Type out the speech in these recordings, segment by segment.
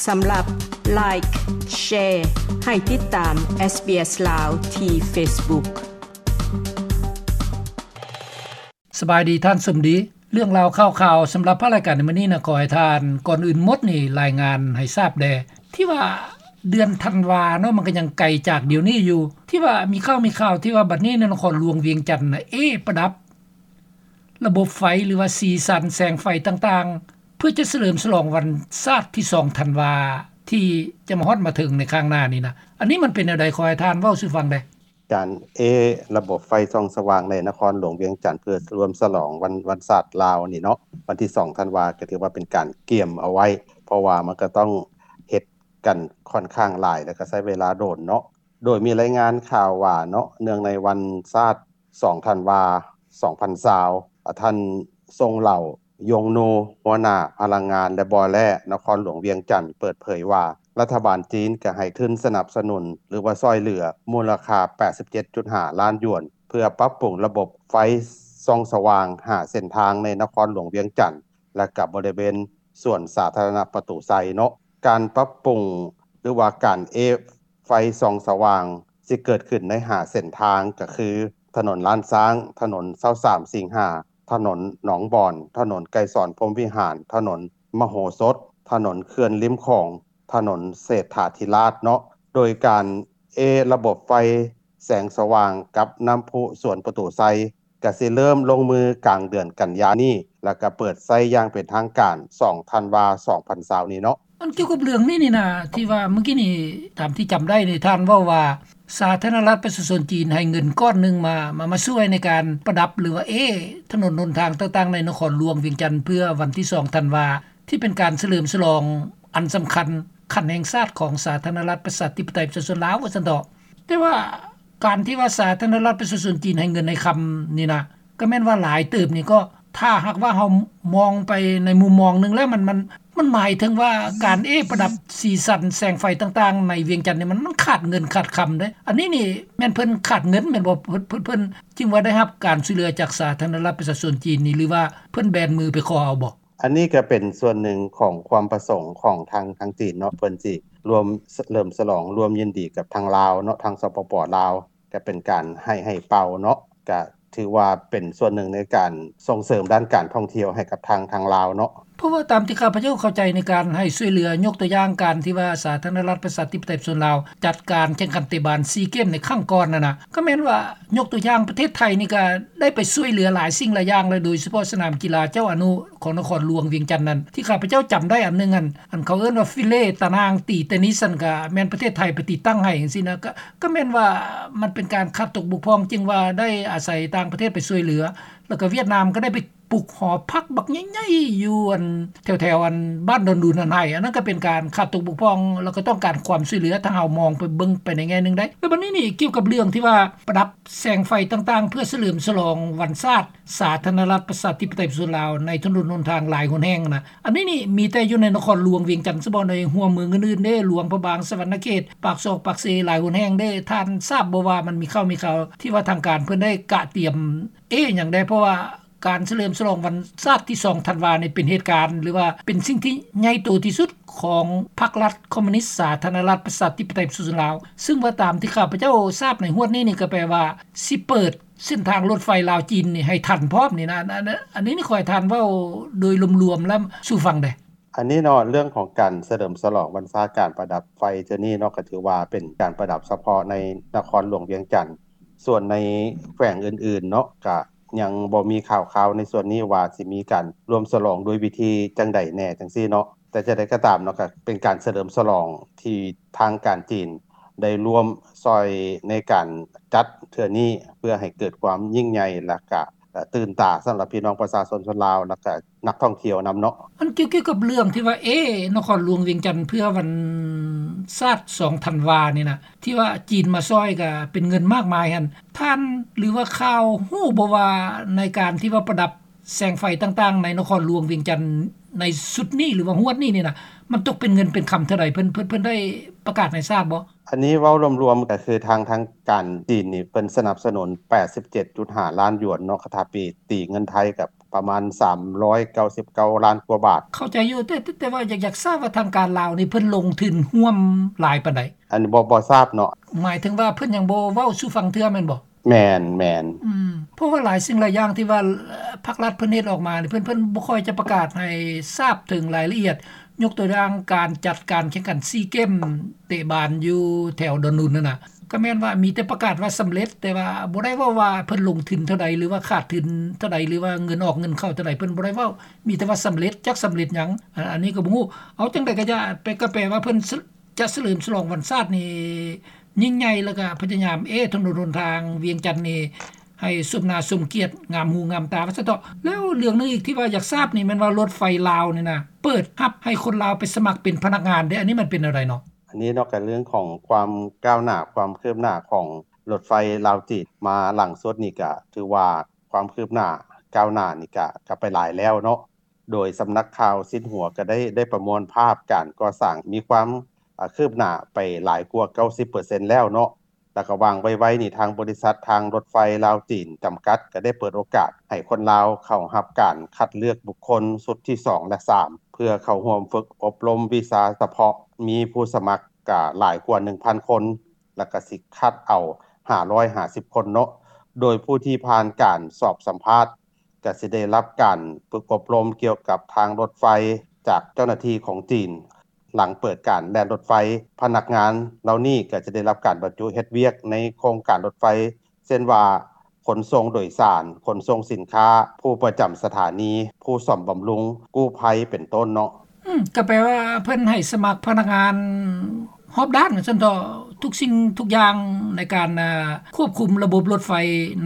ສຳລັບ Like, Share ໃຫ້ຕິດຕາມ SBS ລາວ ທີ່ Facebook. ສະບາຍດີທ່ານສົມດີ. ເລື່ອງລາວຂ່າວໆສຳລັບພາກລາຍການໃນມື້ນີ້ນະ ຂໍໃຫ້ທ່ານ ກ່ອນອື່ນໝົດນີ້ລາຍງານໃຫ້ຊາບແດ່ ທີ່ວ່າເດືອນທັນວາເນາະ ມັນກໍຍັງໄກຈາກດຽວນີ້ຢູ່ ທີ່ວ່າມີຂ່າວ ມີຂ່າວທີ່ວ່າບັດນີ້ໃນນະຄອນຫຼວງວຽງຈັນນະ ເອ ປະດັບລະບົບໄຟ ຫຼືວ່າສີສັນແສງໄຟຕ່າງໆ ເພື່ອຈະສະເຫຼີມສະຫຼອງວັນຊາດທີສອງທັນວາ ທີ່ຈະມາຮອດມາເຖິງໃນຂ້າງໜ້ານີ້ນະ. ອັນນີ້ມັນເປັນແນວໃດ? ຂໍໃຫ້ທ່ານເວົ້າສູ່ຟັງແດ່. ການເອລະບົບໄຟສ່ອງສະຫວ່າງໃນນະຄອນຫຼວງວຽງຈັນ ເພື່ອສະເຫຼີມສະຫຼອງວັນ ວັນຊາດລາວນີ້ເນາະ ວັນທີສອງທັນວາ ກໍຖືວ່າເປັນການກຽມເອົາໄວ້ ເພາະວ່າມັນກໍຕ້ອງເຮັດກັນຂ້ອນຂ້າງຫຼາຍ ແລ້ວກໍໃຊ້ເວລາດົນເນາະ. ໂດຍມີລາຍງານຂ່າວວ່າເນາະ ເນື່ອງໃນວັນຊາດສອງທັນວາ ສອງພັນຊາວ ອາ ທ່ານ ຊົງເຫຼົ່າ ຢົງນູ ຫົວໜ້າພະລັງງານ ແລະ ບໍ່ແຮ່ ນະຄອນຫຼວງວຽງຈັນ ເປີດເຜີຍວ່າ ລັດຖະບານຈີນກໍໃຫ້ທຶນສະໜັບສະໜູນ ຫຼືວ່າຊ່ອຍເຫຼືອ ມູນລະຄ່າແປດສິບເຈັດຈຸດຫ້າລ້ານຢວນ ເພື່ອປັບປຸງລະບົບໄຟສ່ອງສະຫວ່າງຫ້າເສັ້ນທາງໃນນະຄອນຫຼວງວຽງຈັນ ແລະ ກັບບໍລິເວນສວນສາທາລະນະປະຕູໄຊເນາະ. ການປັບປຸງ ຫຼືວ່າການເອ ໄຟສ່ອງສະຫວ່າງຊິເກີດຂຶ້ນໃນຫ້າເສັ້ນທາງ ກໍຄື ຖະໜົນລ້ານຊ້າງ, ຖະໜົນຊາວສາມສິງຫາ, ຖະໜົນໜອງບອນ, ຖະໜົນໄກສອນພົມວິຫານ, ຖະໜົນມະໂຫສົດ, ຖະໜົນເຂື່ອນລິມຂອງ, ຖະໜົນເສດຖາທິລາດເນາະ. ໂດຍການເອລະບົບໄຟແສງສະຫວ່າງກັບນ້ຳພຸສວນປະຕູໄຊ ກະຊິເລີ່ມລົງມືກາງເດືອນກັນຍານີ້ ແລ້ວກະເປີດໃຊ້ຢ່າງເປັນທາງການສອງທັນວາ ສອງພັນຊາວນີ້ເນາະ. ອັນກ່ຽວກັບເລື່ອງນີ້ນີ້ນະ ທີ່ວ່າມື້ກີ້ນີ້ ຕາມທີ່ຈຳໄດ້ນີ້ ທ່ານເວົ້າວ່າ ສາທາລະນະລັດປະຊາຊົນຈີນໃຫ້ເງິນກ້ອນໜຶ່ງມາ ມາ ມາຊ່ວຍໃນການປະດັບ ຫຼືວ່າເອ ຖະໜົນຫົນທາງຕ່າງໆໃນນະຄອນຫຼວງວຽງຈັນ ເພື່ອວັນທີສອງທັນວາ ທີ່ເປັນການສະເຫຼີມສະຫຼອງອັນສຳຄັນຂັ້ນແຫ່ງຊາດຂອງສາທາລະນະລັດປະຊາທິປະໄຕປະຊາຊົນລາວ ວ່າຊັ້ນເຖາະ. ແຕ່ວ່າ ການທີ່ວ່າສາທາລະນະລັດປະຊາຊົນຈີນໃຫ້ເງິນໃຫ້ຄຳນີ້ນະ ກໍແມ່ນວ່າຫຼາຍເຕີບນີ້ ກໍຖ້າຫາກວ່າເຮົາມອງໄປໃນມຸມມອງໜຶ່ງແລ້ວ ມັນ ມັນ ມັນໝາຍເຖິງວ່າການເອປະດັບສີສັນແສງໄຟຕ່າງໆໃນວຽງຈັນນີ້ ມັນ ມັນຂາດເງິນຂາດຄຳເດ້. ອັນນີ້ນີ້ແມ່ນເພິ່ນຂາດເງິນແມ່ນບໍ່? ເພິ່ນ ເພິ່ນ ເພິ່ນຈຶ່ງວ່າໄດ້ຮັບການຊ່ວຍເຫຼືອຈາກສາທາລະນະລັດປະຊາຊົນຈີນນີ້ ຫຼືວ່າເພິ່ນແບນມືໄປຂໍເອົາບໍ່? ອັນນີ້ກໍເປັນສ່ວນໜຶ່ງຂອງຄວາມປະສົງຂອງທາງ ທາງຈີນເນາະ ເພິ່ນຊິລວມສະເຫຼີມສະຫຼອງ ລວມຍິນດີກັບທາງລາວເນາະ ທາງ ສປປ ລາວ ກໍເປັນການໃຫ້ ໃຫ້ເປົ່າເນາະ ກໍຖືວ່າເປັນສ່ວນໜຶ່ງໃນການສົ່ງເສີມດ້ານການທ່ອງທ່ຽວໃຫ້ກັບທາງ ທາງລາວເນາະ. ເພາະວ່າຕາມທີ່ຂ້າພະເຈົ້າເຂົ້າໃຈໃນການໃຫ້ຊ່ວຍເຫຼືອ ຍົກຕົວຢ່າງການທີ່ວ່າສາທາລະນະລັດປະຊາທິປະໄຕປະຊາຊົນລາວ ຈັດການແຂ່ງຂັນເຕະບານຊີເກມໃນຄັ້ງກ່ອນນັ້ນນະ ກໍແມ່ນວ່າ ຍົກຕົວຢ່າງປະເທດໄທນີ້ກໍໄດ້ໄປຊ່ວຍເຫຼືອຫຼາຍສິ່ງຫຼາຍຢ່າງ ແລະ ໂດຍສະເພາະສະໜາມກິລາເຈົ້າອະນຸຂອງນະຄອນຫຼວງວຽງຈັນນັ້ນ ທີ່ຂ້າພະເຈົ້າຈຳໄດ້ອັນໜຶ່ງ ອັນ ອັນເຂົາເອີ້ນວ່າຟິເລຕານາງຕີເຕນິສ ນັ້ນ ກໍແມ່ນປະເທດໄທໄປຕິດຕັ້ງໃຫ້ຈັ່ງຊີ້ນະ ກໍ ກໍແມ່ນວ່າມັນເປັນການຂາດຕົກບົກຜ່ອງ ຈຶ່ງວ່າໄດ້ອາໄສຕ່າງປະເທດໄປຊ່ວຍເຫຼືອ ແລ້ວກໍຫວຽດນາມກໍໄດ້ໄປປຸກຫໍພັກບັກໃຫຍ່ໆຢູ່ອັນ ແຖວໆອັນບ້ານດອນດຸນຫັ້ນໃຫ້ ອັນນັ້ນກໍເປັນການຂາດຕົກບົກຜ່ອງ ແລ້ວກໍຕ້ອງການຄວາມຊ່ວຍເຫຼືອ ຖ້າເຮົາມອງໄປເບິ່ງໄປໃນແງ່ໜຶ່ງໄດ້. ແລ້ວບັດນີ້ນີ້ ກ່ຽວກັບເລື່ອງທີ່ວ່າປະດັບແສງໄຟຕ່າງໆ ເພື່ອສະເຫຼີມສະຫຼອງວັນຊາດສາທາລະນະລັດປະຊາທິປະໄຕປະຊາຊົນລາວ ໃນຖະໜົນຫົນທາງຫຼາຍຫົນແຫ່ງນະ ອັນນີ້ນີ້ມີແຕ່ຢູ່ໃນນະຄອນຫຼວງວຽງຈັນສະເບາະ ໃນຫົວເມືອງອື່ນໆເດ້ ຫຼວງພະບາງ, ສະຫວັນນະເຂດ, ປາກຊອກປາກເຊ ຫຼາຍຫົນແຫ່ງເດ້. ທ່ານຊາບບໍ່ວ່າມັນມີຂ່າວ ມີຂ່າວທີ່ວ່າທາງການເພິ່ນໄດ້ກະຕຽມເອຫຍັງແດ່? ເພາະວ່າການສະເຫຼີມສະຫຼອງວັນຊາດທີສອງທັນວານີ້ ເປັນເຫດການ ຫຼືວ່າເປັນສິ່ງທີ່ໃຫຍ່ໂຕທີ່ສຸດຂອງພັກລັດຄອມມູນິດສາທາລະນະລັດປະຊາທິປະໄຕປະຊາຊົນລາວ ຊຶ່ງວ່າຕາມທີ່ຂ້າພະເຈົ້າຊາບໃນຮວດນີ້ນີ້ ກໍແປວ່າຊິເປີດ ເສັ້ນທາງລົດໄຟລາວຈີນນີ້ໃຫ້ທັນພ້ອມນີ້ນະ ອັນ ອັນ ອັນນີ້ນີ້ ຂໍໃຫ້ທ່ານເວົ້າໂດຍລວມໆແລ້ວສູ່ຟັງແດ່. ອັນນີ້ເນາະ ເລື່ອງຂອງການສະເຫຼີມສະຫຼອງວັນຊາດການປະດັບໄຟເທື່ອນີ້ເນາະ ກໍຖືວ່າເປັນການປະດັບສະເພາະໃນນະຄອນຫຼວງວຽງຈັນ. ສ່ວນໃນແຂວງອື່ນໆເນາະ ກະຍັງບໍ່ມີຂ່າວຄາວໃນສ່ວນນີ້ວ່າຊິມີການລວມສະຫຼອງດ້ວຍວິທີຈັ່ງໃດແດ່ຈັ່ງຊີ້ເນາະ. ແຕ່ຈັ່ງໃດກໍຕາມເນາະ ກໍເປັນການສະເຫຼີມສະຫຼອງທີ່ທາງການຈີນ ໄດ້ລວມຊ່ອຍໃນການຈັດເທື່ອນີ້ ເພື່ອໃຫ້ເກີດຄວາມຍິ່ງໃຫຍ່ ແລ້ວກະຕື່ນຕາສຳລັບພີ່ນ້ອງປະຊາຊົນ ຊົນລາວ ແລ້ວກະນັກທ່ອງທ່ຽວນຳເນາະ. ອັນກ່ຽວ ກ່ຽວກັບເລື່ອງທີ່ວ່າ ເອ ນະຄອນຫຼວງວຽງຈັນເພື່ອວັນຊາດສອງທັນວານີ້ນະ ທີ່ວ່າຈີນມາຊ່ອຍກະເປັນເງິນມາກມາຍຫັ້ນ ທ່ານ ຫຼືວ່າຂ່າວຮູ້ບໍ່ວ່າໃນການທີ່ວ່າປະດັບແສງໄຟຕ່າງໆໃນນະຄອນຫຼວງວຽງຈັນໃນຊຸດນີ້ ຫຼືວ່າຮວດນີ້ນີ້ນະ ມັນຕົກເປັນເງິນເປັນຄຳເທົ່າໃດ? ເພິ່ນ ເພິ່ນ ເພິ່ນໄດ້ປະກາດໃຫ້ຊາບບໍ່? ອັນນີ້ເວົ້າລວມໆ ກໍຄືທາງ ທາງການຈີນນີ້ ເພິ່ນສະໜັບສະໜູນແປດສິບເຈັດຈຸດຫ້າລ້ານຢວນເນາະ ຄັນຖ້າເປັນຕີເງິນໄທກໍປ ປະມານສາມຮ້ອຍເກົ້າສິບເກົ້າລ້ານກວ່າບາດ. ເຂົ້າໃຈຢູ່ ແຕ່ ແຕ່ວ່າຢາກ ຢາກຊາບວ່າທາງການລາວນີ້ເພິ່ນລົງທຶນຮ່ວມຫຼາຍປານໃດ? ອັນນີ້ບໍ່ ບໍ່ຊາບເນາະ. ໝາຍເຖິງວ່າເພິ່ນຍັງບໍ່ເວົ້າສູ່ຟັງເທື່ອແມ່ນບໍ່? ແມ່ນ ແມ່ນ. ອືມ ເພາະວ່າຫຼາຍສິ່ງຫຼາຍຢ່າງທີ່ວ່າ ເອີ່ ພັກລັດເພິ່ນເຮັດອອກມານີ້ ເພິ່ນ ເພິ່ນບໍ່ຄ່ອຍຈະປະກາດໃຫ້ຊາບເຖິງລາຍລະອຽດ. ຍົກຕົວຢ່າງການຈັດການແຂ່ງຂັນຊີເກມເຕະບານຢູ່ແຖວດອນນຸນຫັ້ນນະ ກໍແມ່ນວ່າມີແຕ່ປະກາດວ່າສຳເລັດ ແຕ່ວ່າບໍ່ໄດ້ເວົ້າວ່າເພິ່ນລົງທຶນເທົ່າໃດ ຫຼືວ່າຂາດທຶນເທົ່າໃດ ຫຼືວ່າເງິນອອກເງິນເຂົ້າເທົ່າໃດ ເພິ່ນບໍ່ໄດ້ເວົ້າ ມີແຕ່ວ່າສຳເລັດ ຈັກສຳເລັດຫຍັງ ອັນ ອັນນີ້ກໍບໍ່ຮູ້. ເອົາ ຈັ່ງໃດກໍຢ່າ ໄປ ກໍແປວ່າເພິ່ນ ຈະສະເຫຼີມສະຫຼອງວັນຊາດນີ້ຍິ່ງໃຫຍ່ ແລ້ວກໍພະຍາຍາມ ເອ ຖະໜົນຫົນທາງວຽງຈັນນີ້ໃຫ້ສົມໜ້າສົມກຽດ ງາມຫູງາມຕາວ່າຊັ້ນເຖາະ. ແລ້ວເລື່ອງໜຶ່ງອີກທີ່ວ່າຢາກຊາບນີ້ແມ່ນວ່າລົດໄຟລາວນີ້ນະ ເປີດຮັບໃຫ້ຄົນລາວໄປສະໝັກເປັນພະນັກງານເດ້ ອັນນີ້ມັນເປັນແນວໃດເນາະ? ອັນນີ້ເນາະ ກໍເລື່ອງຂອງຄວາມກ້າວໜ້າ ຄວາມຄືບໜ້າຂອງລົດໄຟລາວຈີນ ມາຫຼັງສຸດນີ້ກໍຖືວ່າຄວາມຄືບໜ້າກ້າວໜ້ານີ້ກໍ ກໍໄປຫຼາຍແລ້ວເນາະ. ໂດຍສຳນັກຂ່າວຊິນຫົວກໍໄດ້ ໄດ້ປະມວນພາບການກໍ່ສ້າງມີຄວາມ ອາ ຄືບໜ້າໄປຫຼາຍກວ່າເກົ້າສິບເປີເຊັນແລ້ວເນາະ ແລ້ວກໍຫວ່າງໄວໆນີ້ ທາງບໍລິສັດທາງລົດໄຟລາວຈີນຈຳກັດ ກໍໄດ້ເປີດໂອກາດໃຫ້ຄົນລາວເຂົ້າຮັບການຄັດເລືອກບຸກຄົນຊຸດທີສອງ ແລະ ສາມ ເພື່ອເຂົ້າຮ່ວມຝຶກອົບຮົມວິຊາສະເພາະ ມີຜູ້ສະໝັກກະຫຼາຍກວ່າໜຶ່ງພັນຄົນ ແລ້ວກໍຊິຄັດເອົາຫ້າຮ້ອຍຫ້າສິບຄົນເນາະ ໂດຍຜູ້ທີ່ຜ່ານການສອບສຳພາດ ກໍຊິໄດ້ຮັບການຝຶກອົບຮົມກ່ຽວກັບທາງລົດໄຟຈາກເຈົ້າໜ້າທີ່ຂອງຈີນ. ຫຼັງເປີດການແລ່ນລົດໄຟ, ພະນັກງານເຫຼົ່ານີ້ກໍຈະໄດ້ຮັບການບັນຈຸເຮັດວຽກໃນໂຄງການລົດໄຟ ເຊັ່ນວ່າ ຂົນສົ່ງໂດຍສານ, ຂົນສົ່ງສິນຄ້າ, ຜູ້ປະຈຳສະຖານີ, ຜູ້ສ້ອມບຳລຸງ, ກູ້ໄພ ເປັນຕົ້ນເນາະ. ອືມ ກໍແປວ່າເພິ່ນໃຫ້ສະໝັກພະນັກງານຮອບດ້ານວ່າຊັ້ນເຖາະ ທຸກສິ່ງທຸກຢ່າງໃນການ ອາ ຄວບຄຸມລະບົບລົດໄຟ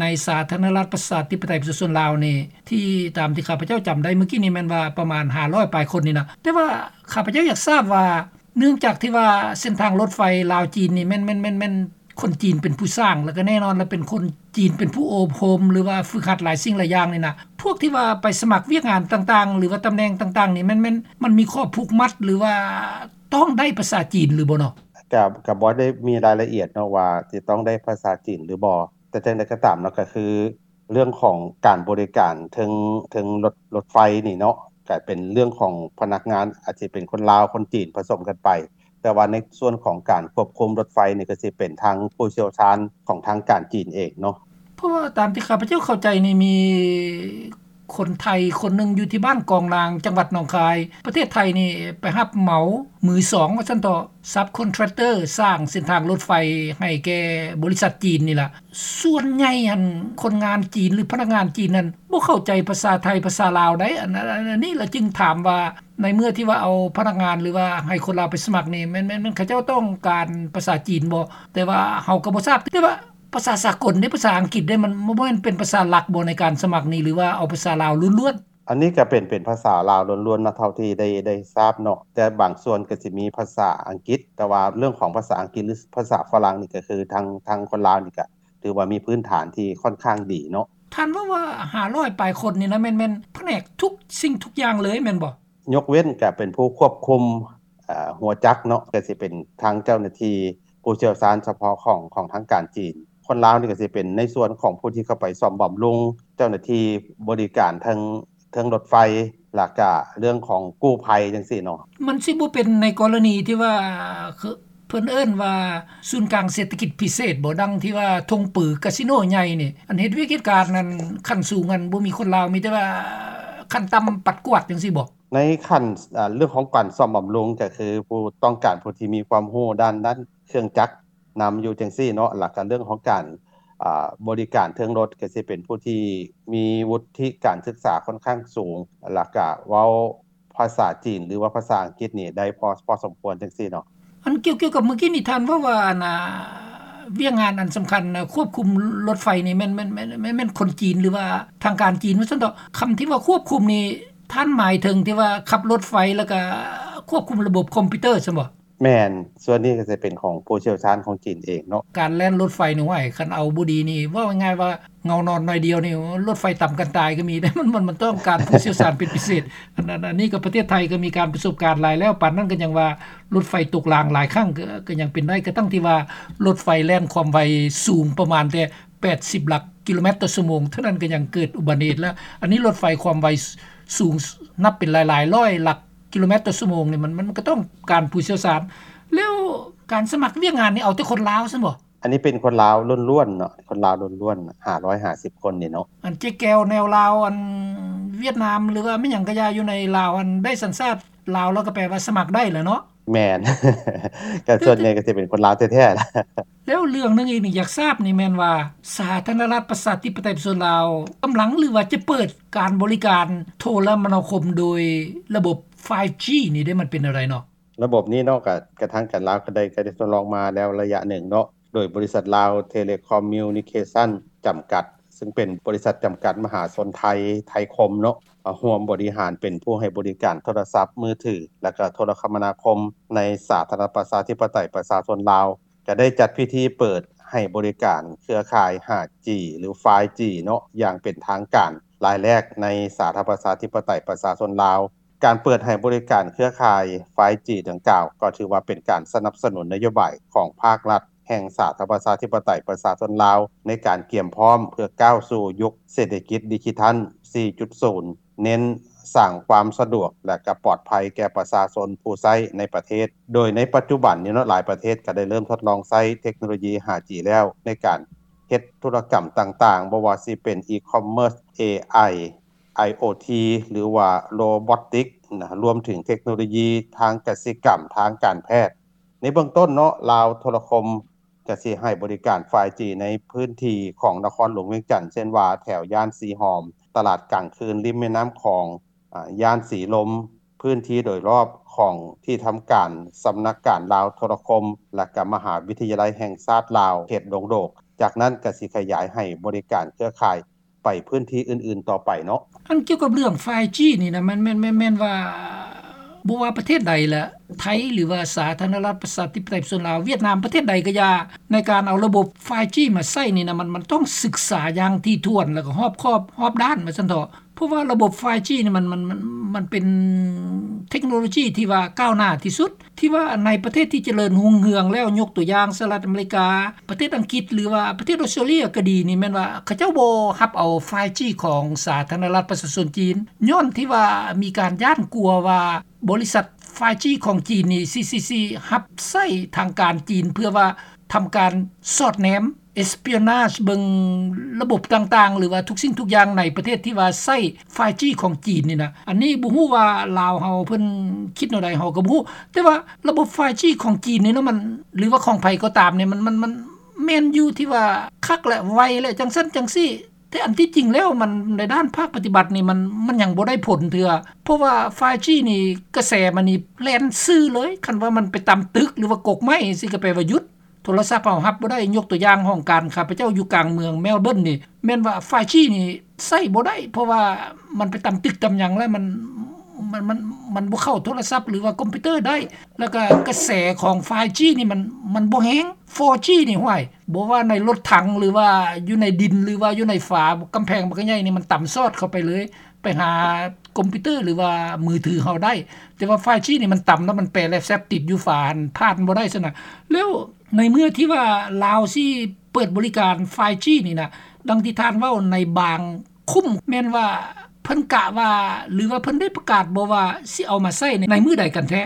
ໃນສາທາລະນະລັດປະຊາທິປະໄຕປະຊາຊົນລາວນີ້ ທີ່ຕາມທີ່ຂ້າພະເຈົ້າຈຳໄດ້ມື້ກີ້ນີ້ແມ່ນວ່າປະມານຫ້າຮ້ອຍປາຍຄົນນີ້ນະ. ແຕ່ວ່າຂ້າພະເຈົ້າຢາກຊາບວ່າ ເນື່ອງຈາກທີ່ວ່າເສັ້ນທາງລົດໄຟລາວຈີນນີ້ແມ່ນ ແມ່ນ ແມ່ນ ແມ່ນ ຄົນຈີນເປັນຜູ້ສ້າງ ແລ້ວກໍແນ່ນອນລະເປັນຄົນຈີນເປັນຜູ້ອົບຮົມ ຫຼືວ່າຝຶກຫັດຫຼາຍສິ່ງຫຼາຍຢ່າງນີ້ນະ ພວກທີ່ວ່າໄປສະໝັກວຽກງານຕ່າງໆ ຫຼືວ່າຕຳແໜ່ງຕ່າງໆນີ້ ແມ່ນ ແມ່ນ ມັນມີຂໍ້ຜູກມັດ ຫຼືວ່າຕ້ອງໄດ້ພາສາຈີນຫຼືບໍ່ເນາະ? ກະ ກະບໍ່ໄດ້ມີລາຍລະອຽດເນາະວ່າຊິຕ້ອງໄດ້ພາສາຈີນຫຼືບໍ່ ແຕ່ຈັ່ງໃດກໍຕາມເນາະ ກໍຄື ເລື່ອງຂອງການບໍລິການເທິງ ເທິງລົດ ລົດໄຟນີ້ເນາະ ກະເປັນເລື່ອງຂອງພະນັກງານ ອາດຊິເປັນຄົນລາວ ຄົນຈີນ ປະສົມກັນໄປ ແຕ່ວ່າໃນສ່ວນຂອງການຄວບຄຸມລົດໄຟນີ້ ກໍຊິເປັນທາງຜູ້ຊ່ຽວຊານຂອງທາງການຈີນເອງເນາະ. ເພາະວ່າຕາມທີ່ຂ້າພະເຈົ້າເຂົ້າໃຈນີ້ ມີຄົນໄທຄົນໜຶ່ງຢູ່ທີ່ບ້ານກອງນາງ ຈັງຫວັດໜອງຄາຍ ປະເທດໄທນີ້ໄປຮັບເໝົາມືສອງວ່າຊັ້ນເຖາະ ຊັບຄອນແທຣັກເຕີ ສ້າງເສັ້ນທາງລົດໄຟໃຫ້ແກ່ບໍລິສັດຈີນນີ້ລະ. ສ່ວນໃຫຍ່ຫັ້ນ ຄົນງານຈີນ ຫຼື ພະນັກງານຈີນນັ້ນ ບໍ່ເຂົ້າໃຈພາສາໄທ ພາສາລາວໃດ໋. ອັນ ອັນ ອັນນີ້ລະຈຶ່ງຖາມວ່າ ໃນເມື່ອທີ່ວ່າເອົາພະນັກງານ ຫຼືວ່າໃຫ້ຄົນລາວໄປສະໝັກນີ້ ແມ່ນ ແມ່ນ ແມ່ນເຂົາເຈົ້າຕ້ອງການພາສາຈີນບໍ່? ແຕ່ວ່າເຮົາກໍບໍ່ຊາບ ແຕ່ວ່າພາສາສາກົນເດ້ ພາສາອັງກິດເດ້ ມັນບໍ່ແມ່ນເປັນພາສາຫຼັກບໍ່ໃນການສະໝັກນີ້ ຫຼືວ່າເອົາພາສາລາວລ້ວນໆ? ອັນນີ້ກໍເປັນ ເປັນພາສາລາວລ້ວນໆເນາະ ເທົ່າທີ່ໄດ້ ໄດ້ຊາບເນາະ ແຕ່ບາງສ່ວນກໍຊິມີພາສາອັງກິດ ແຕ່ວ່າເລື່ອງຂອງພາສາອັງກິດ ຫຼື ພາສາຝຣັ່ງນີ້ ກໍຄືທາງ ທາງຄົນລາວນີ້ກໍຖືວ່າມີພື້ນຖານທີ່ຄ່ອນຂ້າງດີເນາະ. ທ່ານເວົ້າວ່າຫ້າຮ້ອຍປາຍຄົນນີ້ນະ ແມ່ນ ແມ່ນພະແນກທຸກສິ່ງທຸກຢ່າງເລີຍແມ່ນບໍ່? ຍົກເວັ້ນກໍເປັນຜູ້ຄວບຄຸມ ເອີ ຫົວຈັກເນາະ ກໍຊິເປັນທາງເຈົ້າໜ້າທີ່ຜູ້ຊ່ຽວຊານສະເພາະຂອງ ຂອງທາງການຈີນ. ຄົນລາວນີ້ກໍຊິເປັນໃນສ່ວນຂອງຜູ້ທີ່ເຂົ້າໄປສ້ອມບຳລຸງ, ເຈົ້າໜ້າທີ່ບໍລິການເທິງ ເທິງລົດໄຟ ແລ້ວກະເລື່ອງຂອງກູ້ໄພຈັ່ງຊີ້ເນາະ. ມັນຊິບໍ່ເປັນໃນກໍລະນີທີ່ວ່າ ເພິ່ນເອີ້ນວ່າສູນກາງເສດຖະກິດພິເສດບໍ່? ດັ່ງທີ່ວ່າທົ່ງປືກາສິໂນໃຫຍ່ນີ້ ອັນເຮັດວຽກເຮັດການນັ້ນ ຂັ້ນສູງນັ້ນບໍ່ມີຄົນລາວ ມີແຕ່ວ່າຂັ້ນຕ່ຳປັດກວາດຈັ່ງຊີ້ບໍ່? ໃນຂັ້ນ ເລື່ອງຂອງການສ້ອມບຳລຸງ ກໍຄືຜູ້ຕ້ອງການຜູ້ທີ່ມີຄວາມຮູ້ດ້ານ ດ້ານເຄື່ອງຈັກນຳຢູ່ຈັ່ງຊີ້ເນາະ ແລ້ວກໍເລື່ອງຂອງການ ອາ ບໍລິການເທິງລົດ ກໍຊິເປັນຜູ້ທີ່ມີວຸດທິການສຶກສາຄ່ອນຂ້າງສູງ ແລ້ວກະເວົ້າພາສາຈີນ ຫຼືວ່າພາສາອັງກິດນີ້ໄດ້ພໍ ພໍສົມຄວນຈັ່ງຊີ້ເນາະ. ອັນກ່ຽວ ກ່ຽວກັບມື້ກີ້ນີ້ ທ່ານເວົ້າວ່າ ອັນ ອາ ວຽກງານອັນສຳຄັນ ຄວບຄຸມລົດໄຟນີ້ແມ່ນ ແມ່ນ ແມ່ນ ແມ່ນ ແມ່ນຄົນຈີນ ຫຼືວ່າທາງການຈີນວ່າຊັ້ນເຖາະ. ຄຳທີ່ວ່າຄວບຄຸມນີ້ ທ່ານໝາຍເຖິງທີ່ວ່າຂັບລົດໄຟ ແລ້ວກະຄວບຄຸມລະບົບຄອມພິວເຕີຊັ້ນບໍ່? ແມ່ນ, ສ່ວນນີ້ກໍຈະເປັນຂອງຜູ້ຊ່ຽວຊານຂອງຈີນເອງເນາະ. ການແລ່ນລົດໄຟນີ້ ໂອ້ຍ ຄັນເອົາບໍ່ດີນີ້ ເວົ້າງ່າຍໆວ່າເຫງົານອນໜ້ອຍດຽວນີ້ ລົດໄຟຕຳກັນຕາຍກໍມີເດ້. ມັນ ມັນ ມັນຕ້ອງການຜູ້ຊ່ຽວຊານເປັນພິເສດ. ອັນ ອັນ ອັນນີ້ກໍປະເທດໄທກໍມີການປະສົບການຫຼາຍແລ້ວ, ປານນັ້ນກໍຍັງວ່າລົດໄຟຕົກລາງຫຼາຍຄັ້ງ ກໍ ກໍຍັງເປັນໄດ້, ກະທັ່ງທີ່ວ່າລົດໄຟແລ່ນຄວາມໄວສູງປະມານແຕ່ ແປດສິບຫຼັກກິໂລແມັດຕໍ່ຊົ່ວໂມງເທົ່ານັ້ນ ກໍຍັງເກີດອຸບັດຕິເຫດແລ້ວ. ອັນນີ້ລົດໄຟຄວາມໄວສ- ສູງ ນັບເປັນຫຼາຍໆຮ້ອຍຫຼັກກິໂລແມັດຕໍ່ຊົ່ວໂມງນີ້ ມັນ ມັນກໍຕ້ອງການຜູ້ຊ່ຽວຊານ. ແລ້ວການສະໝັກວຽກງານນີ້ ເອົາແຕ່ຄົນລາວຊັ້ນບໍ? ອັນນີ້ເປັນຄົນລາວລ້ວນໆເນາະ, ຄົນລາວລ້ວນໆ ຫ້າຮ້ອຍຫ້າສິບຄົນນີ້ເນາະ. ອັນເຈແກວແນວລາວ ອັນຫວຽດນາມ ຫຼືວ່າແມ່ນຫຍັງກະຢ່າ ຢູ່ໃນລາວ ອັນໄດ້ສັນຊາດລາວ ແລ້ວກໍແປວ່າສະໝັກໄດ້ແຫຼະເນາະ. ແມ່ນ ກໍສ່ວນໃຫຍ່ກໍຊິເປັນຄົນລາວແທ້ໆລະ. ແລ້ວເລື່ອງໜຶ່ງອີກນີ້ ຢາກຊາບນີ້ແມ່ນວ່າ ສາທາລະນະລັດປະຊາທິປະໄຕປະຊາຊົນລາວ ກຳລັງ ຫຼືວ່າຈະເປີດການບໍລິການໂທລະມະນາຄົມໂດຍລະບົບ ໄຟຈີ ນີ້ເດ້ ມັນເປັນແນວໃດເນາະ? ລະບົບນີ້ເນາະ ກໍ ກໍທາງການລາວກໍໄດ້ ກໍໄດ້ທົດລອງມາແລ້ວໄລຍະໜຶ່ງເນາະ ໂດຍບໍລິສັດລາວເທເລຄອມມິວນິເຄຊັນຈຳກັດ ຊຶ່ງເປັນບໍລິສັດຈຳກັດມະຫາຊົນໄທ ໄທຄົມເນາະ ມາຮ່ວມບໍລິຫານເປັນຜູ້ໃຫ້ບໍລິການໂທລະສັບມືຖື ແລະ ກໍໂທລະຄະມະນາຄົມໃນສາທາລະນະລັດປະຊາທິປະໄຕປະຊາຊົນລາວ ກໍໄດ້ຈັດພິທີເປີດໃຫ້ບໍລິການເຄືອຂ່າຍ ຫ້າຈີ ຫຼື ໄຟຈີ ເນາະ ຢ່າງເປັນທາງການລາຍແລກໃນສາທາລະນະລັດປະຊາທິປະໄຕປະຊາຊົນລາວ. ການເປີດໃຫ້ບໍລິການເຄືອຂ່າຍ ໄຟຈີ ດັ່ງກ່າວ ກໍຖືວ່າເປັນການສະໜັບສະໜູນນະໂຍບາຍຂອງພາກລັດແຫ່ງສາທາລະນະລັດປະຊາທິປະໄຕປະຊາຊົນລາວ ໃນການກຽມພ້ອມເພື່ອກ້າວສູ່ຍຸກເສດຖະກິດດິຈິທັນ ສີ່ຈຸດສູນ ເນັ້ນສ້າງຄວາມສະດວກ ແລະ ກໍປອດໄພແກ່ປະຊາຊົນຜູ້ໃຊ້ໃນປະເທດ. ໂດຍໃນປັດຈຸບັນນີ້ເນາະ ຫຼາຍປະເທດກໍໄດ້ເລີ່ມທົດລອງໃຊ້ເທັກໂນໂລຢີ ຫ້າຈີ ແລ້ວ ໃນການເຮັດທຸລະກຳຕ່າງໆ ບໍ່ວ່າຊິເປັນ e-commerce, ເອໄອ ໄອໂອທີ ຫຼືວ່າໂຣບອດຕິກນະ ລວມເຖິງເທັກໂນໂລຢີທາງກະສິກຳ, ທາງການແພດ. ໃນເບື້ອງຕົ້ນເນາະ ລາວໂທລະຄົມກະຊິໃຫ້ບໍລິການ ໄຟຈີ ໃນພື້ນທີ່ຂອງນະຄອນຫຼວງວຽງຈັນ ເຊັ່ນວ່າແຖວຍ່ານສີຫອມ, ຕະຫຼາດກາງຄືນລິມແມ່ນ້ຳຂອງ, ອາ, ຍ່ານສີລົມ, ພື້ນທີ່ໂດຍລອບຂອງທີ່ທຳການສຳນັກການລາວໂທລະຄົມ ແລະ ກະມະຫາວິທະຍາໄລແຫ່ງຊາດລາວ ເຂດດົງໂດກ. ຈາກນັ້ນກະຊິຂະຫຍາຍໃຫ້ບໍລິການເຄືອຂ່າຍ ໄປພື້ນທີ່ອື່ນໆຕໍ່ໄປເນາະ. ອັນກ່ຽວກັບເລື່ອງ ໄຟຈີ ນີ້ນະ ມັນແມ່ນ ແມ່ນ ແມ່ນວ່າ ບໍ່ວ່າປະເທດໃດລະ ໄທ ຫຼືວ່າສາທາລະນະລັດປະຊາທິປະໄຕປະຊາຊົນລາວ, ຫວຽດນາມ, ປະເທດໃດກໍຢ່າ ໃນການເອົາລະບົບ ໄຟຈີ ມາໃຊ້ນີ້ນະ ມັນ ມັນຕ້ອງສຶກສາຢ່າງຖີ່ຖ້ວນ ແລ້ວກໍຮອບຄອບຮອບດ້ານວ່າຊັ້ນເຖາະ. ເພາະວ່າລະບົບ ໄຟຈີ ນີ້ມັນ ມັນ ມັນ ມັນເປັນເທັກໂນໂລຈີທີ່ວ່າກ້າວໜ້າທີ່ສຸດ ທີ່ວ່າໃນປະເທດທີ່ຈະເລີນຮຸ່ງເຮືອງແລ້ວ ຍົກຕົວຢ່າງ ສະຫະລັດອາເມລິກາ, ປະເທດອັງກິດ ຫຼືວ່າປະເທດອົດສະຕຣາເລຍກໍດີນີ້ ແມ່ນວ່າເຂົາເຈົ້າບໍ່ຮັບເອົາ ໄຟຈີ ຂອງສາທາລະນະລັດປະຊາຊົນຈີນ ຍ້ອນທີ່ວ່າມີການຢ້ານກົວວ່າບໍລິສັດ ໄຟຈີ ຂອງຈີນນີ້ຊິ ຊິ ຊິຮັບໃຊ້ທາງການຈີນ ເພື່ອວ່າທຳການສອດແນມ espionage ເບິ່ງລະບົບຕ່າງໆ ຫຼືວ່າທຸກສິ່ງທຸກຢ່າງໃນປະເທດທີ່ວ່າໃຊ້ ໄຟຈີ ຂອງຈີນນີ້ນະ. ອັນນີ້ບໍ່ຮູ້ວ່າລາວເຮົາເພິ່ນຄິດແນວໃດ ເຮົາກໍບໍ່ຮູ້ ແຕ່ວ່າລະບົບ ໄຟຈີ ຂອງຈີນນີ້ນະ ມັນ ຫຼືວ່າຂອງໃຜກໍຕາມນີ້ ມັນ ມັນ ມັນແມ່ນຢູ່ທີ່ວ່າຄັກ ແລະ ໄວ ແລະ ຈັ່ງຊັ້ນຈັ່ງຊີ້. ແຕ່ອັນທີ່ຈິງແລ້ວມັນ ໃນດ້ານພາກປະຕິບັດນີ້ ມັນ ມັນຍັງບໍ່ໄດ້ຜົນເທື່ອ ເພາະວ່າ ໄຟຈີ ນີ້ກະແສມັນນີ້ແລ່ນຊື່ເລີຍ. ຄັນວ່າມັນໄປຕຳຕຶກ ຫຼືວ່າກົກໄມ້ຈັ່ງຊີ້ ກໍແປວ່າຢຸດ. ໂທລະສັບເຮົາຮັບບໍ່ໄດ້. ຍົກຕົວຢ່າງ ຫ້ອງການຂ້າພະເຈົ້າຢູ່ກາງເມືອງແມລເບີນນີ້ ແມ່ນວ່າ ໄຟຈີ ນີ້ໃຊ້ບໍ່ໄດ້ ເພາະວ່າມັນໄປຕຳຕຶກຕຳຫຍັງແລ້ວ ມັນ ມັນ ມັນ ມັນບໍ່ເຂົ້າໂທລະສັບ ຫຼືວ່າຄອມພິວເຕີໄດ້. ແລ້ວກໍກະແສຂອງ ໄຟຈີ ນີ້ມັນ ມັນບໍ່ແຮງ. ໂຟຈີ ນີ້ ຫ້ວຍ ບໍ່ວ່າໃນລົດຖັງ ຫຼືວ່າຢູ່ໃນດິນ ຫຼືວ່າຢູ່ໃນຝາກຳແພງບັກໃຫຍ່ນີ້ ມັນຕຳສອດເຂົ້າໄປເລີຍ ໄປຫາຄອມພິວເຕີ ຫຼືວ່າມືຖືເຮົາໄດ້. ແຕ່ວ່າ ໄຟຈີ ນີ້ມັນຕຳແລ້ວມັນແປແລັບແຊັບຕິດຢູ່ຝາຫັ້ນ ຜ່ານບໍ່ໄດ້ຊັ້ນນະ. ແລ້ວໃນເມື່ອທີ່ວ່າລາວຊິເປີດບໍລິການ ໄຟຈີ ນີ້ນະ ດັ່ງທີ່ທ່ານເວົ້າໃນບາງຄຸ້ມ ແມ່ນວ່າເພິ່ນກະວ່າ ຫຼືວ່າເພິ່ນໄດ້ປະກາດບໍ່ວ່າຊິເອົາມາໃຊ້ໃນ ໃນມື້ໃດກັນແທ້?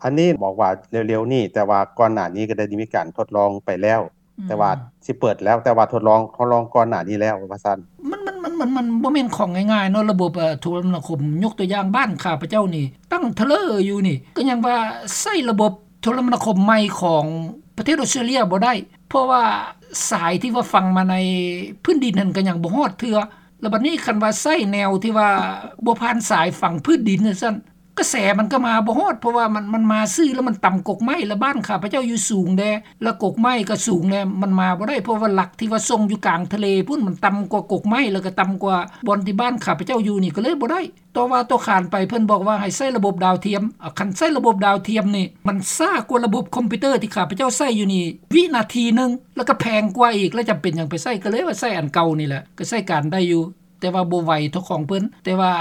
ອັນນີ້ບອກວ່າເລັວໆນີ້ ແຕ່ວ່າກ່ອນໜ້ານີ້ກໍໄດ້ມີການທົດລອງໄປແລ້ວ ອືມ ແຕ່ວ່າຊິເປີດແລ້ວ ແຕ່ວ່າທົດລອງ ທົດລອງກ່ອນໜ້ານີ້ແລ້ວວ່າຊັ້ນ. ມັນ ມັນ ມັນ ມັນ ມັນບໍ່ແມ່ນຂອງງ່າຍໆເນາະ ລະບົບ ເອີ ໂທລະມະນາຄົມ. ຍົກຕົວຢ່າງບ້ານຂ້າພະເຈົ້ານີ້ ຕັ້ງທະເລີຢູ່ນີ້ ກໍຍັງວ່າໃຊ້ລະບົບໂທລະມະນາຄົມໃໝ່ຂອງປະເທດອົດສະຕຣາເລຍບໍ່ໄດ້ ເພາະວ່າສາຍທີ່ວ່າຝັງມາໃນພື້ນດິນຫັ້ນກໍຍັງບໍ່ຮອດເທື່ອ. ແລ້ວບັດນີ້ຄັນວ່າໃຊ້ແນວທີ່ວ່າບໍ່ຜ່ານສາຍຝັງພື້ນດິນຈັ່ງຊັ້ນ ກະແສມັນກໍມາບໍ່ຮອດ ເພາະວ່າມັນ ມັນມາຊື່ແລ້ວມັນຕຳກົກໄມ້ ແລ້ວບ້ານຂ້າພະເຈົ້າຢູ່ສູງແດ່ ແລ້ວກົກໄມ້ກໍສູງແດ່ ມັນມາບໍ່ໄດ້ ເພາະວ່າຫຼັກທີ່ວ່າສົ່ງຢູ່ກາງທະເລພຸ້ນ ມັນຕ່ຳກວ່າກົກໄມ້ ແລ້ວກໍຕ່ຳກວ່າບ່ອນທີ່ບ້ານຂ້າພະເຈົ້າຢູ່ນີ້ ກໍເລີຍບໍ່ໄດ້. ຕໍ່ວ່າຕໍ່ຂານໄປ ເພິ່ນບອກວ່າໃຫ້ໃຊ້ລະບົບດາວທຽມ. ອາ ຄັນໃຊ້ລະບົບດາວທຽມນີ້ ມັນຊ້າກວ່າລະບົບຄອມພິວເຕີທີ່ຂ້າພະເຈົ້າໃຊ້ຢູ່ນີ້ວິນາທີໜຶ່ງ ແລ້ວກໍແພງກວ່າອີກ ແລ້ວຈຳເປັນຫຍັງໄປໃຊ້ ກໍເລີຍວ່າໃຊ້ອັນເກົ່ານີ້ແຫຼະ ກໍໃຊ້ການໄດ້ຢູ່. ແຕ່ວ່າບໍ່ໄວເທົ່າຂອງເພິ່ນ ແຕ່ວ່າ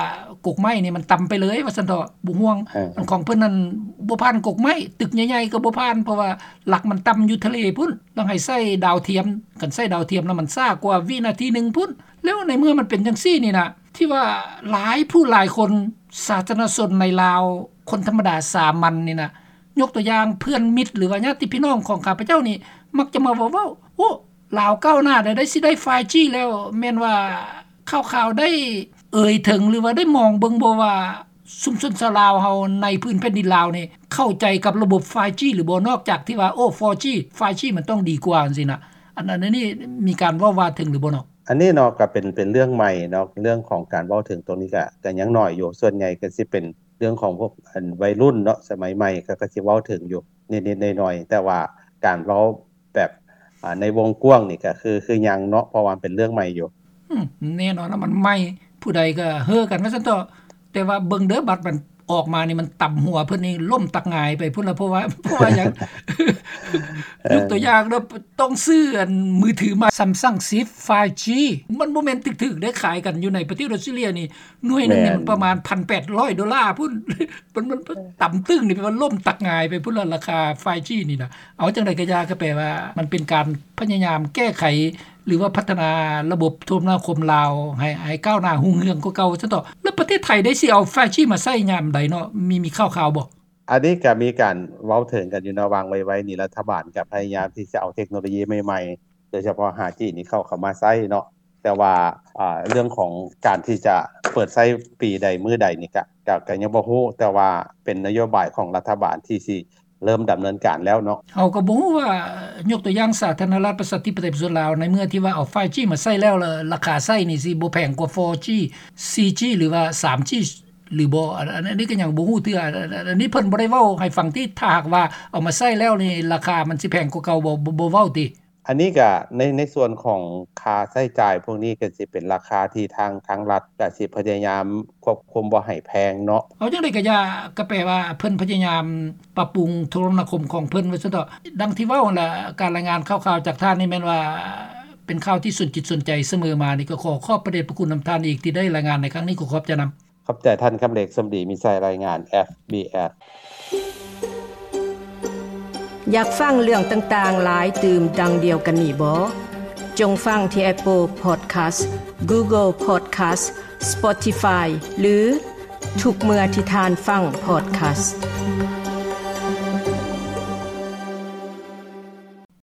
ກົກໄມ້ນີ້ມັນຕ່ຳໄປເລີຍວ່າຊັ້ນເຖາະ ບໍ່ຫ່ວງ. ເອີ ອັນຂອງເພິ່ນນັ້ນ ບໍ່ຜ່ານກົກໄມ້ ຕຶກໃຫຍ່ໆກໍບໍ່ຜ່ານ ເພາະວ່າຫຼັກມັນຕ່ຳຢູ່ທະເລພຸ້ນ ຕ້ອງໃຫ້ໃຊ້ດາວທຽມ ຄັນໃຊ້ດາວທຽມແລ້ວມັນຊ້າກວ່າວິນາທີໜຶ່ງພຸ້ນ. ແລ້ວໃນເມື່ອມັນເປັນຈັ່ງຊີ້ນີ້ນະ ທີ່ວ່າຫຼາຍຜູ້ຫຼາຍຄົນ ສາທາລະນະຊົນໃນລາວ ຄົນທຳມະດາສາມັນນີ້ນະ ຍົກຕົວຢ່າງເພື່ອນມິດ ຫຼືວ່າຍາດຕິພີ່ນ້ອງຂອງຂ້າພະເຈົ້ານີ້ ມັກຈະມາເວົ້າ ໂອ້ ລາວກ້າວໜ້າແລ້ວ ໄດ້ ຊິໄດ້ ໄຟຈີ ແລ້ວ ແມ່ນວ່າຂ່າວໆໄດ້ເອີຍເຖິງ ຫຼືວ່າໄດ້ມອງເບິ່ງບໍ່ວ່າ ຊຸມຊົນຊາວລາວເຮົາໃນພື້ນແຜ່ນດິນລາວນີ້ ເຂົ້າໃຈກັບລະບົບ ໄຟຈີ ຫຼືບໍ່ ນອກຈາກທີ່ວ່າ ໂອ້ ໂຟຈີ ໄຟຈີ ມັນຕ້ອງດີກວ່າຈັ່ງຊີ້ນະ ອັນ ອັນນີ້ມີການເວົ້າວ່າເຖິງຫຼືບໍ່ເນາະ? ອັນນີ້ເນາະ ກໍເປັນ ເປັນເລື່ອງໃໝ່ເນາະ ເລື່ອງຂອງການເວົ້າເຖິງຕົງນີ້ກໍ ກໍຍັງໜ້ອຍຢູ່ ສ່ວນໃຫຍ່ກໍຊິເປັນເລື່ອງຂອງພວກ ອັນ ໄວລຸ້ນເນາະ ສະໄໝໃໝ່ ເຂົາກໍຊິເວົ້າເຖິງຢູ່ນິດໆໜ້ອຍໆ ແຕ່ວ່າການເວົ້າ ແບບ ອ່າ ໃນວົງກວ້າງນີ້ກໍຄື ຄືຍັງເນາະ ເພາະວ່າມັນເປັນເລື່ອງໃໝ່ຢູ່. ອືມ ແນ່ນອນລະ ມັນໃໝ່ ຜູ້ໃດກໍເຮີກັນວ່າຊັ້ນເຖາະ ແຕ່ວ່າເບິ່ງເດີ ບັດມັນອອກມານີ້ ມັນຕຳຫົວເພິ່ນນີ້ລົ້ມຕັກຫງາຍໄປພຸ້ນລະ ເພາະວ່າ ເພາະວ່າຫຍັງ ຍົກຕົວຢ່າງເນາະ ຕ້ອງຊື້ອັນມືຖືໃໝ່ Samsung Shift ໄຟຈີ ມັນບໍ່ແມ່ນຖືກໆເດ້ ຂາຍກັນຢູ່ໃນປະເທດອອສເຕຣເລຍນີ້ ໜ່ວຍໜຶ່ງນີ້ ແມ່ນ ມັນປະມານ ພັນແປດຮ້ອຍໂດລາພຸ້ນ ມັນ ມັນ ເອີ ຕຳຕຶ້ງນີ້ ແປວ່າລົ້ມຕັກຫງາຍໄປພຸ້ນລະ ລາຄາ ໄຟຈີ ນີ້ນະ. ເອົາ ຈັ່ງໃດກໍຢ່າ ກໍແປວ່າມັນເປັນການພະຍາຍາມແກ້ໄຂ ຫຼືວ່າພັດທະນາລະບົບໂທລະນາຄົມລາວ ໃຫ້ ໃຫ້ກ້າວໜ້າຮຸ່ງເຮືອງກວ່າເກົ່າຊັ້ນເຖາະ. ແລ້ວປະເທດໄທໄດ້ຊິເອົາ ໄຟຈີ ມາໃຊ້ຍາມໃດເນາະ? ມີ ມີຂ່າວໆບໍ່? ອັນນີ້ກໍມີການເວົ້າເຖິງກັນຢູ່ເນາະ ວ່າງໄວໆນີ້ ລັດຖະບານກໍພະຍາຍາມທີ່ຈະເອົາເທັກໂນໂລຢີໃໝ່ໆ ໂດຍສະເພາະ ຫ້າຈີ ນີ້ເຂົ້າ ເຂົ້າມາໃຊ້ເນາະ ແຕ່ວ່າ ອ່າ ເລື່ອງຂອງການທີ່ຈະເປີດໃຊ້ປີໃດມື້ໃດນີ້ກະ ກະ ກະຍັງບໍ່ຮູ້ ແຕ່ວ່າເປັນນະໂຍບາຍຂອງລັດຖະບານທີ່ຊິເລີ່ມດຳເນີນການແລ້ວເນາະ. ເຮົາກໍບໍ່ຮູ້ວ່າ ຍົກຕົວຢ່າງ ສາທາລະນະລັດ ປະຊາທິປະໄຕ ປະຊາຊົນລາວ ໃນເມື່ອທີ່ວ່າເອົາ ໄຟຈີ ມາໃຊ້ແລ້ວ ລະລາຄາໃຊ້ນີ້ຊິບໍ່ແພງກວ່າ ໂຟຈີ ສີ່ຈີ ຫຼືວ່າ ສາມຈີ ຫຼືບໍ່ ອັນ ອັນ ອັນນີ້ກໍຍັງບໍ່ຮູ້ເທື່ອ. ອັນ ອັນ ອັນນີ້ເພິ່ນບໍ່ໄດ້ເວົ້າໃຫ້ຟັງຕິ ຖ້າຫາກວ່າເອົາມາໃຊ້ແລ້ວນີ້ ລາຄາມັນຊິແພງກວ່າເກົ່າບໍ່ ບໍ່ ບໍ່ເວົ້າຕິ? ອັນນີ້ກະໃນ ໃນສ່ວນຂອງຄ່າໃຊ້ຈ່າຍພວກນີ້ກະຊິເປັນລາຄາທີ່ທາງ ທາງລັດກະຊິພະຍາຍາມຄວບຄຸມບໍ່ໃຫ້ແພງເນາະ. ເອົາ ຈັ່ງໃດກະຢ່າ ກະແປວ່າເພິ່ນພະຍາຍາມປັບປຸງໂທລະນາຄົມຂອງເພິ່ນວ່າຊັ້ນເຖາະ. ດັ່ງທີ່ເວົ້າຫັ້ນລະ ການລາຍງານຂ່າວໆຈາກທ່ານນີ້ແມ່ນວ່າເປັນຂ່າວທີ່ສົນຈິດສົນໃຈສະເໝີມານີ້ ກໍຂໍຂອບພະເດດພະຄຸນນຳທ່ານອີກທີ່ໄດ້ລາຍງານໃນຄັ້ງນີ້ ຂໍຂອບໃຈນຳ. ຂອບໃຈທ່ານ ຄຳເລັກ ສົມດີ ມີໄຊ ລາຍງານ ເອັຟບີເອັຟ. ຢາກຟັງເລື່ອງຕ່າງໆຫຼາຍຕື່ມດັ່ງດຽວກັນນີ້ບໍ? ຈົ່ງຟັງທີ່ Apple Podcast, Google Podcast, Spotify ຫຼື ທຸກເມື່ອທີ່ທ່ານຟັງ Podcast.